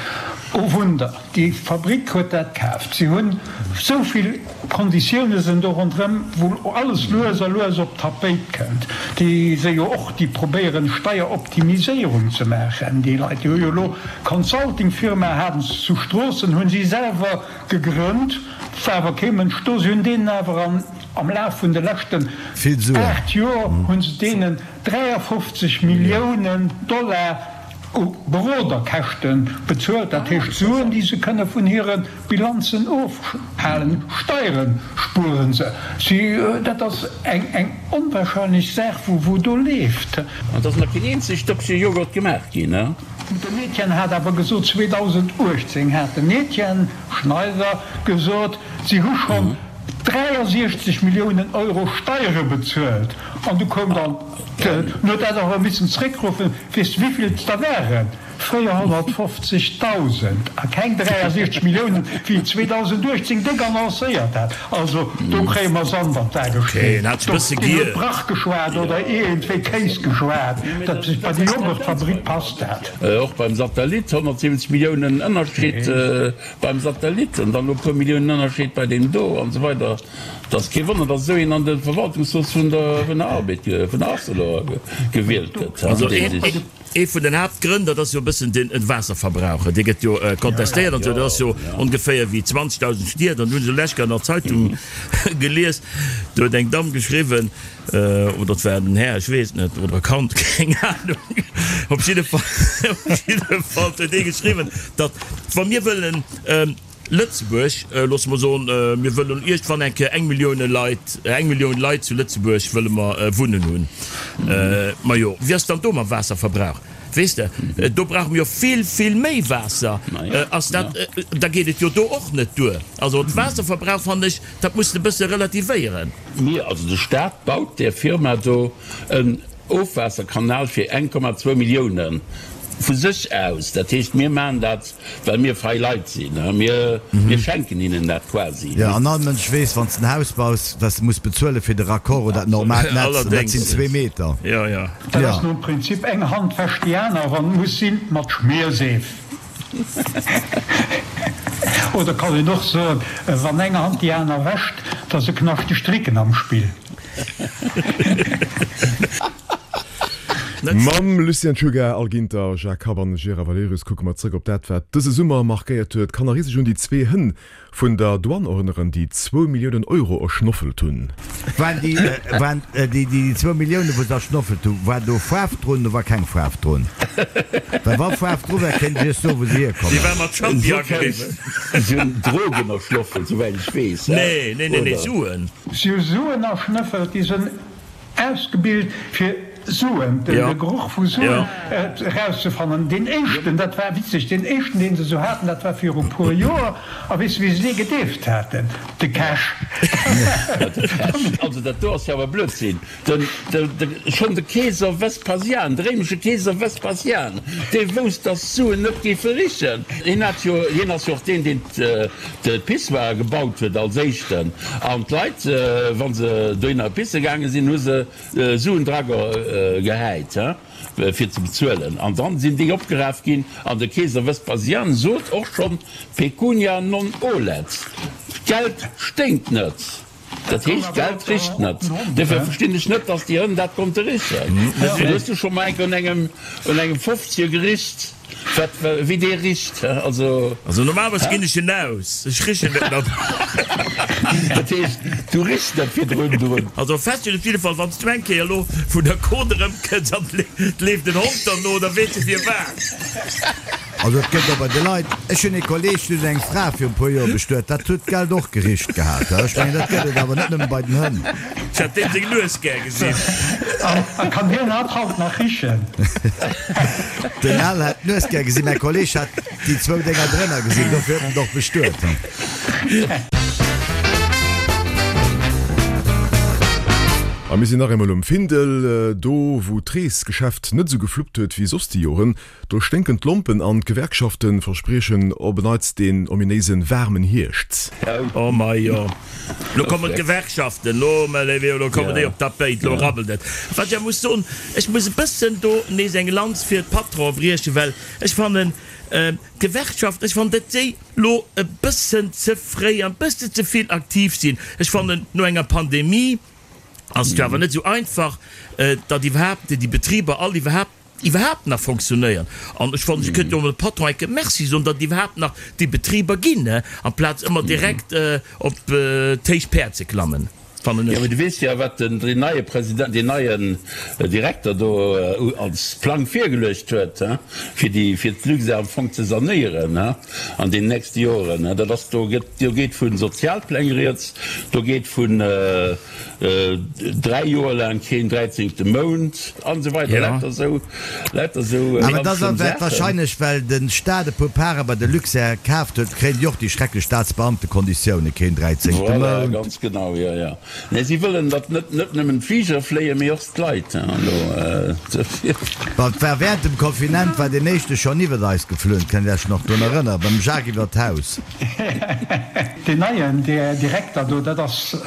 [SPEAKER 4] Oh Wunder, déi Fabrik huet dat kaaft. Si hunn esou vill Konditioune sinn do ronderëm, wou alles lues a lues op d'Tapéit kënnt. Déi si jo och, déi probéieren Steieroptimiséierung ze maachen, déi Leit. Déi hu jo elo Consultingfirma haten se zu Stroossen, hu si selwer gegrënnt, war awer kee Mënsch do. Si hunn deenen awer an am Laf vun de leschten
[SPEAKER 5] Vill Suen.
[SPEAKER 4] 8 Joer hu se deenen 53 Milliounen Dollar u Beroderkäschte bezuelt, dat heescht Suen, déi se kënne vun hire Bilanzen ofhalen. Steiere spuere se. Si, dat ass eng eng onwahrscheinlech Saach, wou do leeft.
[SPEAKER 3] An et ass nach keen eenzegt Dëppche Joghurt gemaach ginn, ne?
[SPEAKER 4] Den Etienne hat awer gesot, 2018 hat den Etienne Schneider gesot, si hu schonn 63 Milliounen Euro Steiere bezuelt. An du koum dann, en huet dat awer missen zréckruffen, weess de wéivill et der waren? 450.000 a keng 63 Milliounen, wéi et 2018 déck annoncéiert hat. Also do kréie mer Sand an d'A gestreet. Do ginn huet Brach geschwat oder iergendwéi Kéis geschwat. Dat bei déi Joghurtfabrik passt dat.
[SPEAKER 3] Och beim Satellit, 170 Milliounen Ënnerscheed beim Satellit an dann elo e puer Milliounen Ënnerscheed bei deem do an esou weider. Et ass kee Wonner, datt esou een an de Verwaltungsrot vun der Arbed, vun der Arcelor gewielt gëtt.
[SPEAKER 6] Also ee vun den Haaptgrënn, dat ass jo e bëssen den Waasserverbrauch. Dee gëtt jo kontestéiert an esou. Dat ass jo ongeféier wéi 20.000 Stied. An do hunn ech lech an der Zeitung gelies, do huet eng Damm geschriwwen, oder et war en Här, ech weess et net, oder e Kand, keng Anung, op jidde Fall, op jidde Fall huet dee geschriwwen, datt wa mir wëllen Lëtzebuerg, loosse mer soen, mir wëllen iergendwann eng Kéier eng Millioune Leit, eng Millioun Leit zu Lëtzebuerg wëlle mer wunnen hunn. Majo, wéi ass dann do mam Waasserverbrauch? Weess de, do brauche mir jo vill, vill méi Waasser. Ass dat, da geet et jo do och net duer. Also de Waasserverbrauch, fannen ech, dat muss de e bësse relativéieren.
[SPEAKER 3] Mir, also de Staat baut där Firma do en Ofwaasserkanal fir 1,2 Milliounen vu sech aus. Dat heescht, mir maachen dat Well mir fei Leit sinn, mir schenken hinnen dat quasi.
[SPEAKER 5] Jo, an all Mënsch weess, wann s de en Haus baus, wat s de muss bezuelen fir de Raccord oder dat normaalt Netz, an dat sinn zwee Meter.
[SPEAKER 6] Jo, jo.
[SPEAKER 4] Dat ass nom Prinzip eng Hand wäscht déi aner, wann et muss sinn, mat Schmierseef. Oder kann een och soen, wann eng Hand déi aner wäscht, da si knaschteg Stricken am Spill.
[SPEAKER 2] Mam Lucien Czuga, Al Ginter, Jacques Kapp an Gérard Valerius kucke mer zrëck op dat, wat dëse Summer markéiert huet. Kann nach ee sech un déi zwee Hënn vun der Douane erënneren, déi zwou Milliounen Euro erschnoffelt hunn?
[SPEAKER 5] Waren déi, waren déi, déi zwou Milliounen, wou se erschnoffelt hunn, war do Faarf drun oder war keng Faarf drun? Well wa Faarf dru war, kéint ech iech soen, wou se hierkommen.
[SPEAKER 6] Déi war mat Champi ageriwwen.
[SPEAKER 3] Si hunn Drogen erschnoffelt, souwäit ech weess.
[SPEAKER 6] Nee, nee, nee, nee, Suen.
[SPEAKER 4] Si hu Suen erschnëffelt, déi sinn ausgebilt fir Suen, de Geroch vu Suen erauszefannen. Deen éischten, dat war witzeg, deen éischten, deen se esou haten, dat war viru puer Joer. A weess de, wéi se dee gedeeft haten? De Cash.
[SPEAKER 3] Also dat do ass jo awer Blödsinn. Den, de, schonn de Keeser Vespasian, de réimesche Keeser Vespasian, dee wousst, datt d'Suen net géife richen. Hien hat jo, hien ass jo och deen, deen d'Pissoire gebaut huet als éischten. An d'Leit, wa se dohinner pisse gaange sinn, hu se Suen dra gehäit, fir ze bezuelen. An dann sinn déi opgeraf ginn. An de Keeser Vespasian sot och schonn, Pecunia non olet, d'Geld sténkt net. Dat heescht, d'Geld richt net. Duerfir verstinn ech net, datt déi Hënn dat konnte richen. Hues du scho mol enk un engem, un engem Fofzier gericht, wat, wéi dee richt? Also.
[SPEAKER 6] Also normalerweis ginn ech en aus, ech richen net mat.
[SPEAKER 3] Dat heescht, du richs net virdrun drun?
[SPEAKER 6] Also fest steet op jidde Fall, wann s du eng Kéier elo vun der Côte erëmkënns an et leeft en Hond derno, da weess de firwat.
[SPEAKER 5] Also et gëtt och bei de Leit, ech hunn ee Kolleg, deen huet eng Fra viru e puer Joer bestuet, dat huet d'Geld och gericht gehat. Ech mengen, dat gëtt et awer net nëmme bei den Hënn.
[SPEAKER 6] Ech hätt deem seng Nues gär gesinn.
[SPEAKER 4] A kann hien hat haut nach richen?
[SPEAKER 5] Den Al hätt d'Nues gär gesinn, mäi Kolleg hat déi zwou Dénger drënner gesinn, dofir huet en et och bestuet.
[SPEAKER 2] A mir sinn nach eemol um Findel, do wou d'Reesgeschäft net esou gefluppt huet wéi soss déi Joren. Do sténken d'Lompen an d'Gewerkschafte verspriechen op en Neits deen ominéise waarmen Hierscht.
[SPEAKER 6] Oh majo, lo kommen d'Gewerkschaften, lo, mä léiwe Jo, lo kommen déi op d'Tapéit, lo rabbelt et. Wat ech awer muss soen, ech muss e bëssen do nees eng Lanz fir d'Patronen briechen, well ech fannen, d'Gewerkschaften, ech fannen, datt déi lo e bëssen ze fréi an e bësse ze vill aktiv sinn. Ech fannen, no enger Pandemie ass et jo awer net esou einfach, datt iwwerhaapt déi Betriber all iwwerhaapt, iwwerhaapt nach fonctionnéieren. An ech fannen, ech kënnt jo emol dem Patron enke Merci soen, datt et iwwerhaapt nach déi Betriber ginn, amplaz ëmmer direkt op d'héich Päerd ze klammen, fannen
[SPEAKER 3] ech. Jo, mee du weess jo, wat den neie President, deen neien Direkter do als Plang virgeluecht huet, fir déi, fir d'Luxair am Fong ze sanéieren an den nächste Joren. Dat ass, do gëtt, do geet vu Sozialpläng rieds, do geet vun, 3 Joer laang keen dräizéngte Mount an esou weider, lauter esou, lauter esou
[SPEAKER 5] Awer ganz dat schlëmm ass Saachen. wahrscheinlech well de Staat e puer Pare bei de Luxair kaaft huet, kréien déi och déi schrecklech Staatsbeamtekonditiounen, keen dräizéngte
[SPEAKER 3] Voilà, Mount. ganz genau, jo, jo. Nee, si wëllen, datt net net nëmmen d'Fliger fléien, mee och d'Leit. Elo
[SPEAKER 5] dofir. Well et war während dem Confinent war deen éischte schonn iwwert eis geflunn, kënnt Iech nach drun erënneren, beim Jacques iwwert d'Haus.
[SPEAKER 4] Deen neien Direkter do, dat ass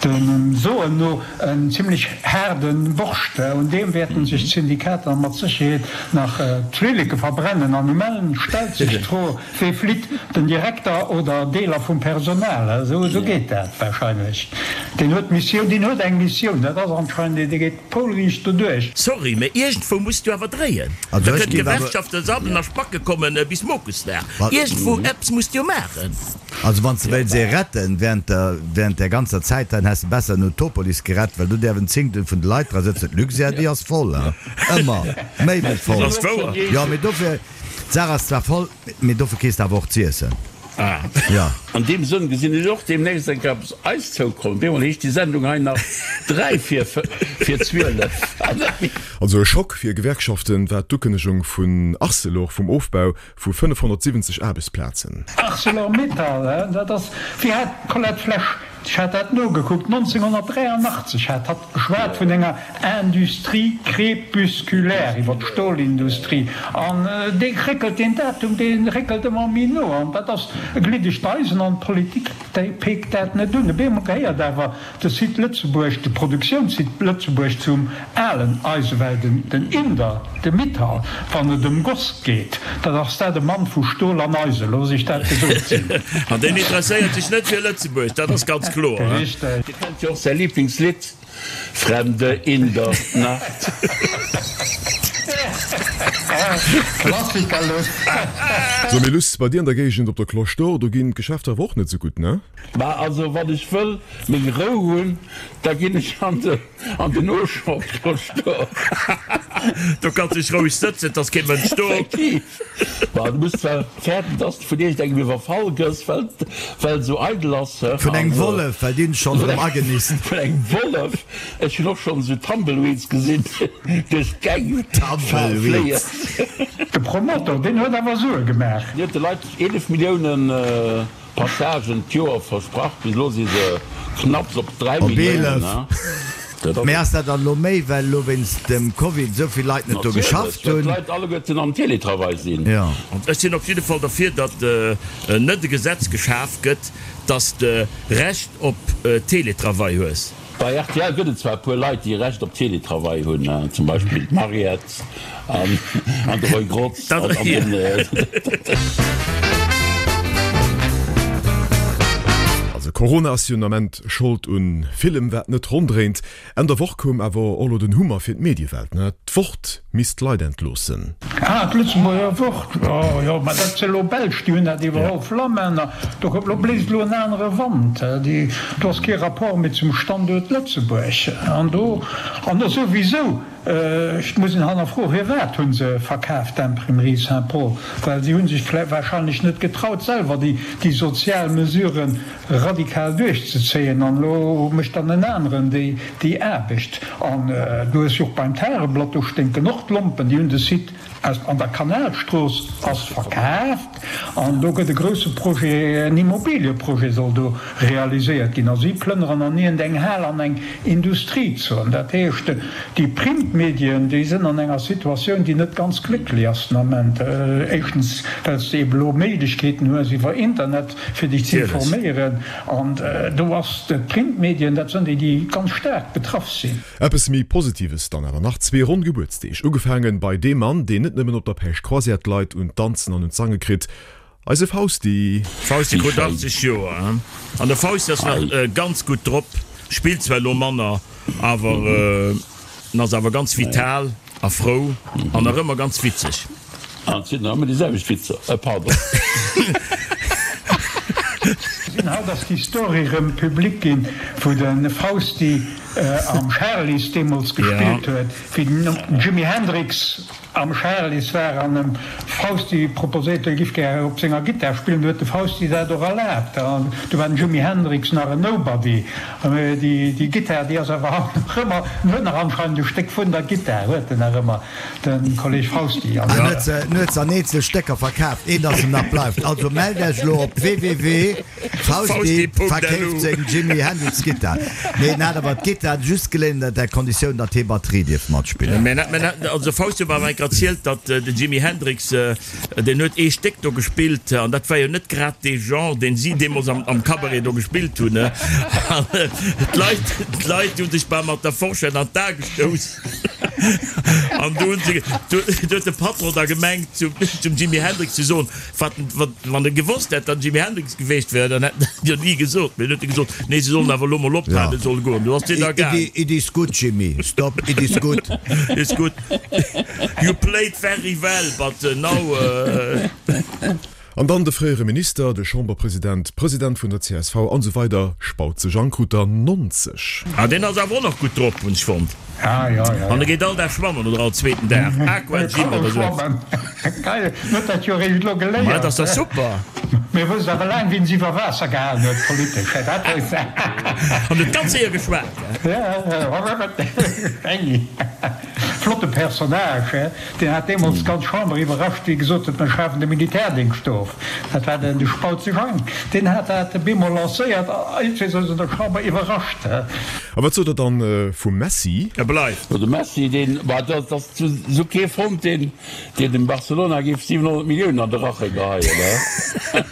[SPEAKER 4] dem Soen no en zimlech haarde Borscht. Un deem wäerten sech d'Syndikater mat Sécherheet nach d'Flilleke verbrennen. An um Enn stellt sech d'Fro, Wee flitt, den Direkter oder Deeler vum Personal? Esou geet dat wahrscheinlech. Deen huet d'Missioun, deen huet eng Missioun, dat ass anscheinend, dee geet poulriicht doduerch.
[SPEAKER 6] Sorry, mä iergendwou muss du awer dréien. Da kënnen d'Gewerkschaften sabbelen a spacke kommen bis Mokusdag. Iergendwou eppes muss de jo maachen.
[SPEAKER 5] Also wann s de wéilts ee retten während der während där ganzer Zäit, dann häss de besser den Utopolis gerett, well do däerf en Zéngtel vun de Leit dra sëtzen. D'Luxair déi ass voll, hein, ëmmer méi wéi voll.
[SPEAKER 6] Ass wouer.
[SPEAKER 5] Jo, mee dofir, d'Saach ass zwar voll, mee dofir kriss de awer och z'iessen.
[SPEAKER 3] Ah.
[SPEAKER 5] Jo.
[SPEAKER 3] An deem Sënn gesinn ech och deemnächst eng Kéier eppes eis zoukommen. Op eemol heescht déi Sendung hei nach 3 vir vir 12 an net méi.
[SPEAKER 2] Also e Schock fir Gewerkschaften war d'Ukënnegung vun Arcelor vum Ofbau vu 570 Aarbechtsplazen.
[SPEAKER 4] Arcelor-Mittal, dat ass, wéi hat d'Colette Flesch, ech hat dat nogekuckt, 1983 hat hatt geschwat vun enger Industrie crépusculaire iwwer d'Stolindustrie. An dee réckelt, deen Datum, dee réckelt ëmmer méi no. An dat ass e gliddegt Eisen an d'Politik, déi peekt dat net un. Op eemol gehéiert awer De Site Lëtzebuerg, de Produktiounssite Lëtzebuerg zum alen Eisewell, den Inder, de Mittal, wann et ëm Goss geet, dat ass dat e Mann vu Stol an Eisen, looss ech dat gesot sinn.
[SPEAKER 6] An deen interesséiert sech net fir Lëtzebuerg, dat ass ganz kloer.
[SPEAKER 4] Richteg.
[SPEAKER 3] Dir kennt jo och säi Lieblingslidd, Fremde in der Nacht.
[SPEAKER 4] Klassiker, Luss.
[SPEAKER 2] So, mee Luss, bei dir an der Géigend op der Cloche d'Or, do ginn d'Geschäfter awer och net sou gutt, ne?
[SPEAKER 3] Mä also wann ech wëll meng Rou hunn, da ginn ech an de an den Auchan Cloche d'Or.
[SPEAKER 6] Do kanns dech roueg sëtzen, et ass kee Mënsch do.
[SPEAKER 3] Effektiv. Bah, du muss zwar fäerten, dass de vun iergendengem iwwerfall gëss, well well et esou eidel ass, he.
[SPEAKER 5] Vun engem Wollef, well déi hunn schonn erëm agenisst.
[SPEAKER 3] Vun engem Wollef. Ech hunn och schonn esou Tumbleweeds gesinn duerch d'Gäng fléien.
[SPEAKER 4] De Promotor, deen huet awer Sue gemaach.
[SPEAKER 3] Deen huet de Leit 11 Milliounen Passagen d'Joer versprach, bis elo si se knapps op 3
[SPEAKER 5] Op
[SPEAKER 3] Milliounen.
[SPEAKER 5] 11. Mee ass dat dann elo méi, well elo wéinst dem Covid esou vill Leit net do
[SPEAKER 3] Natierlech,
[SPEAKER 5] geschafft
[SPEAKER 3] well
[SPEAKER 5] hunn?
[SPEAKER 3] d'Leit alleguerten am Télétravail sinn.
[SPEAKER 5] Jo.
[SPEAKER 6] Ech sinn op jidde Fall derfir, datt net e Gesetz geschaf gëtt, datt s de Recht op Télétravail hues.
[SPEAKER 3] Bei rtl gëtt et zwar e puer Leit, déi Recht op Télétravail hunn, zum Beispill d'Mariette an de Roy Grotz an den.
[SPEAKER 2] Also Corona ass jo den Ament Schold un villem wat net ronn dréint. Enn der Woch koum awer och lo den Hummer fir d'Mediewelt, ne? D'Wort misst Leit entloossen.
[SPEAKER 4] Ah, d'Lëtzebuerger Wort, jo, jo, mä dat si elo Belsch, déi hunn dat iwwerholl, Flamänner, do koum, lo bléist elo en anere Wand, déi, do ass kee Rapport méi zum Standuert Lëtzebuerg. An do, an do souwisou, et muss een hannerfroen, firwat hu se verkaaft, d'Imprimerie Saint-Paul, well si hu sech vläicht wahrscheinlech net getraut, selwer déi, déi sozial Mesuren radikal duerchzezéien an elo mécht dann en aneren déi déi Aarbecht. An du hues jo och beim Tageblatt, do sténken och d'Lompen, déi hunn de Site aus an der Kanalstrooss ass verkaaft an do gëtt e grousse Projet, en Immobilieprojet soll do realiséiert ginn a si plënneren an iergend eng Hal an eng Industriezon. Dat heescht, déi Printmedien, déi sënn an enger Situatioun, déi net ganz glécklech ass den Ament. Éischtens, well s de ebe elo Méiglechkeeten hues iwwer Internet, fir dech ze informéieren. An do ass d'Printmedien, dat sënn déi, déi ganz staark betraff sinn.
[SPEAKER 2] Eppes méi Positives dann awer nach, zwee ronn Gebuertsdeeg, ugefaangen bei deem Mann, deen net nëmmen op der Päischt Croisière d'Leit un d'Danzen an un d'Sange kritt, eise Fausti.
[SPEAKER 6] Fausti krut 80 Joer, an de Fausti ass nach ganz gutt drop, spillt zwar elo manner, awer en ass awer ganz vital a frou an nach ëmmer ganz witzeg.
[SPEAKER 3] An et sinn nach ëmmer déi selwecht Witzer. Euh, pardon.
[SPEAKER 4] Sinn haut ass déi Story rëm public ginn, wou de Fausti am Charly's deemools gespillt huet, wéi den Jimi Hendrix. Am Charly's war an dem Fausti proposéiert, e giff gär op senger Gittar spillen. Du huet de Fausti dat och erlaabt. An du war den Jimi Hendrix nach en Nobody. Déi Gittar, déi ass awer haut nach ëmmer, en huet nach anscheinend e Stéck vun der Gittar, huet en nach ëmmer, de Kolleg Fausti.
[SPEAKER 5] En huet se, en huet se an eenzel Stécker verkaaft, eent ass em nach bleift. Also mellt Iech elo op www. Fausti verkeeft seng Jimi Hendrix Gittar. Nee, en hat awer d'Gittar just geléint ënner der Konditioun, datt hie Batterie dierf matspillen.
[SPEAKER 6] Mä also Fausti huet mer awer enker erzielt, datt den Jimi Hendrix, deen huet ee Stéck do gespillt, an dat war jo net grad dee Genre, deen si deemools am Cabaret do gespillt hunn. An d'Leit, d'Leit hu sech bal mat der Forschett an d'A gestouss. An du hunn se, du huet de Patron da gemengt zum Jimi Hendrix ze soen, Wat, wat, wann e gewosst hätt, datt Jimi Hendrix geweecht wär, dann hätt en dat jo ni gesot. Mee dann huet e gesot, Nee, se sollen awer elo mol ophalen, se solle goen. Du ass deen da gaang.
[SPEAKER 5] It is good, Jimi. Stop, it is good.
[SPEAKER 6] It's good. You played very well, but now.
[SPEAKER 2] An dann de fréiere Minister, de Chamberpresident, President vun der csv an esou weider Spautze Jang krut der 90.
[SPEAKER 6] Ah, deen ass awer och nach gutt drop, hunn ech fonnt.
[SPEAKER 4] Ah, ja, ja,
[SPEAKER 6] An e geet all Dag schwammen oder all zweeten Dag. Aqua Gym oder sou eppes.
[SPEAKER 4] Geil, en huet dat jo eréischt elo geléiert.
[SPEAKER 6] Ma dat ass dach super!
[SPEAKER 4] Mir wësst awer laang wien se iwwer Waasser gehalen huet politesch, hä? Dat wësst se.
[SPEAKER 6] An huet ganz séier geschwat,
[SPEAKER 4] hä? Flotte Personnage, hä? Deen hat deemools d'ganz Chamber iwwerrascht, wéi e gesot huet, mir schafen de Militärdéngscht of. Dat war den de Spautze Jang. Deen hat dat bemol lancéiert a iergendwéi ass en der Chamber iwwerrascht.
[SPEAKER 2] A wat sot der dann vum Messi?
[SPEAKER 6] E bleift.
[SPEAKER 3] Jo, de Messi, deen, bah, dat ass esou kee fonnt, deen, deen dem Barcelona géif 700 Milliounen an de Rache geheien, he?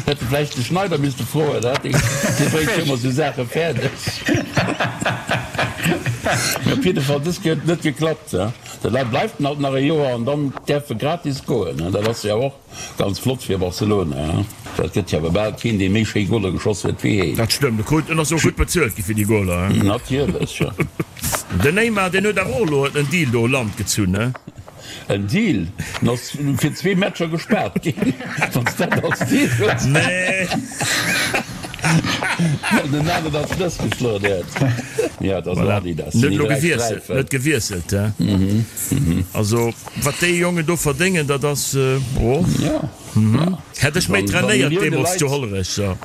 [SPEAKER 3] Hätt de vläicht de Schneider misste froen, he? Dee, dee bréngt jo ëmmer esou Saache fäerdeg. Mee op jidde Fall, dës Kéier huet et net geklappt, he? De Leit bleift en alt nach e Joer an dann däerf e gratis goen, he? Dat ass jo och Ganz flott fir Barcelona, he? Et gëtt jo awer bal keen, dee méi schéi Goler geschoss huet wéi heen.
[SPEAKER 6] Dat stëmmt, e krut en ass och gutt bezuelt gi fir déi Goler, he?
[SPEAKER 3] Natierlech, jo.
[SPEAKER 6] Den Neymar, deen huet awer och elo en Deal do u Land gezunn, he?
[SPEAKER 3] En Deal? En ass fir zwee Matcher gespaart ginn, wann s dat als Deal hues.
[SPEAKER 6] Nee.
[SPEAKER 3] Well den Nagel als Schlëss geschloen huet. Jo, et ass
[SPEAKER 6] Voilà.
[SPEAKER 3] Adidas,
[SPEAKER 6] En
[SPEAKER 3] sinn
[SPEAKER 6] huet
[SPEAKER 3] déi
[SPEAKER 6] elo
[SPEAKER 3] dräi
[SPEAKER 6] gewiesselt, en
[SPEAKER 3] Sträifen.
[SPEAKER 6] huet gewiesselt, he? Also. Wat déi Jongen do verdéngen, dat ass, oh. Hätt ech méi trainéiert deemols zu Hollerech, so.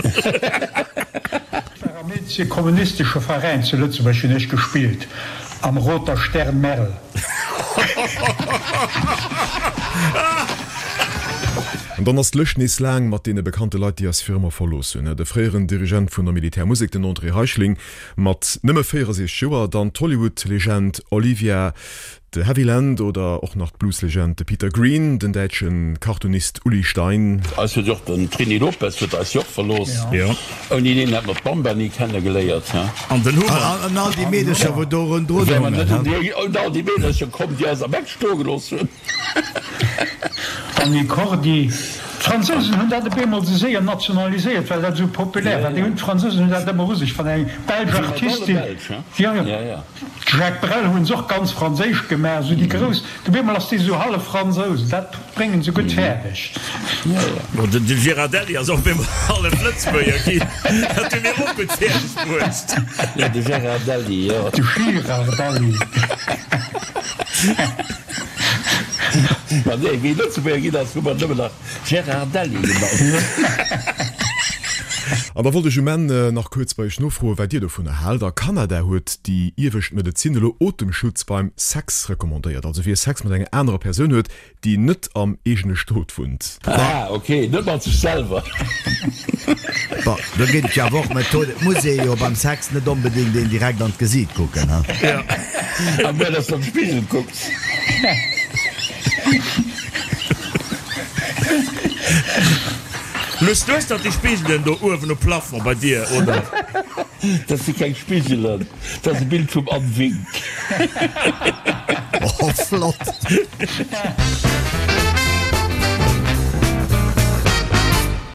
[SPEAKER 4] Ech war am eenzege kommunistesche Veräin zu Lëtzebuerg, hunn ech gespillt, am Roter Stern Merl.
[SPEAKER 2] An dann ass d'Lëscht nees laang mat deene bekannte Leit, déi eis fir ëmmer verlooss hunn. De fréieren Dirigent vun der Militärmusek, den André Reichling, mat nëmme 64 Joer, dann d'Hollywood-Legend Olivia De Havilland oder och nach d'Blueslegend de Peter Green, den däitsche Cartoonist Uli Stein.
[SPEAKER 3] Eis huet jo och den Trini Lopez huet eis jo och verlooss. Ouni deen hätt mer d'Bamba ni kenne geléiert, he?
[SPEAKER 6] An den Hummer.
[SPEAKER 5] An all déi Meedercher wou do rondrun
[SPEAKER 3] Wäre mer
[SPEAKER 5] hongen,
[SPEAKER 3] net
[SPEAKER 5] he?
[SPEAKER 3] un déi, un all déi Meedercher komm, déi eis am Eck stoe gelooss hunn.
[SPEAKER 4] D'Annie Cordy. D'Fransousen hunn dat op eemol esou séier nationaliséiert, well dat esou populär war. Déi hunn, d'Fransousen hunn dat ëmmer u sech, wann eng belsch Artistin, jo, jo. Jacques Brel hunn se och ganz franséisch gemaach, esou déi grouss, op eemol ass dee sou hallef Fransous, dat bréngen se gutt fäerdeg.
[SPEAKER 6] Bon, den Girardelli ass och op eemol hallef Lëtzebuerger ginn, dat hu mir och gutt fäerdeg bruecht.
[SPEAKER 3] Jo, de Gérardelli, jo.
[SPEAKER 4] De Girardelli.
[SPEAKER 3] Ma nee, wéi Lëtzebuerger ginn ass, hu mer nëmmen nach Gérardelli genannt.
[SPEAKER 2] An da wollt ech um Enn nach kuerz bei Iech nofroen, wat Dir dovunner haalt. A Kanada huet déi iewescht Medezin elo Otemschutz beim Sex recommandéiert, also wie Sex mat enger anerer Persoun huet, déi net am eegene Stot wunnt.
[SPEAKER 3] Ah ok, net mat sech selwer.
[SPEAKER 5] Bon, do ginn et jo awer och Methoden. Et muss ee jo beim Sex net onbedéngt een direkt an d'Gesiit kucken, ha?
[SPEAKER 3] A muer, dass de an de Spigel kucks.
[SPEAKER 6] Luss, du hues dach déi Spigelen do uewen um Plafond bei dir, oder?
[SPEAKER 3] Dat si keng Spigelen, dat ass e Bild vum Anne Wink.
[SPEAKER 5] Oh, flott!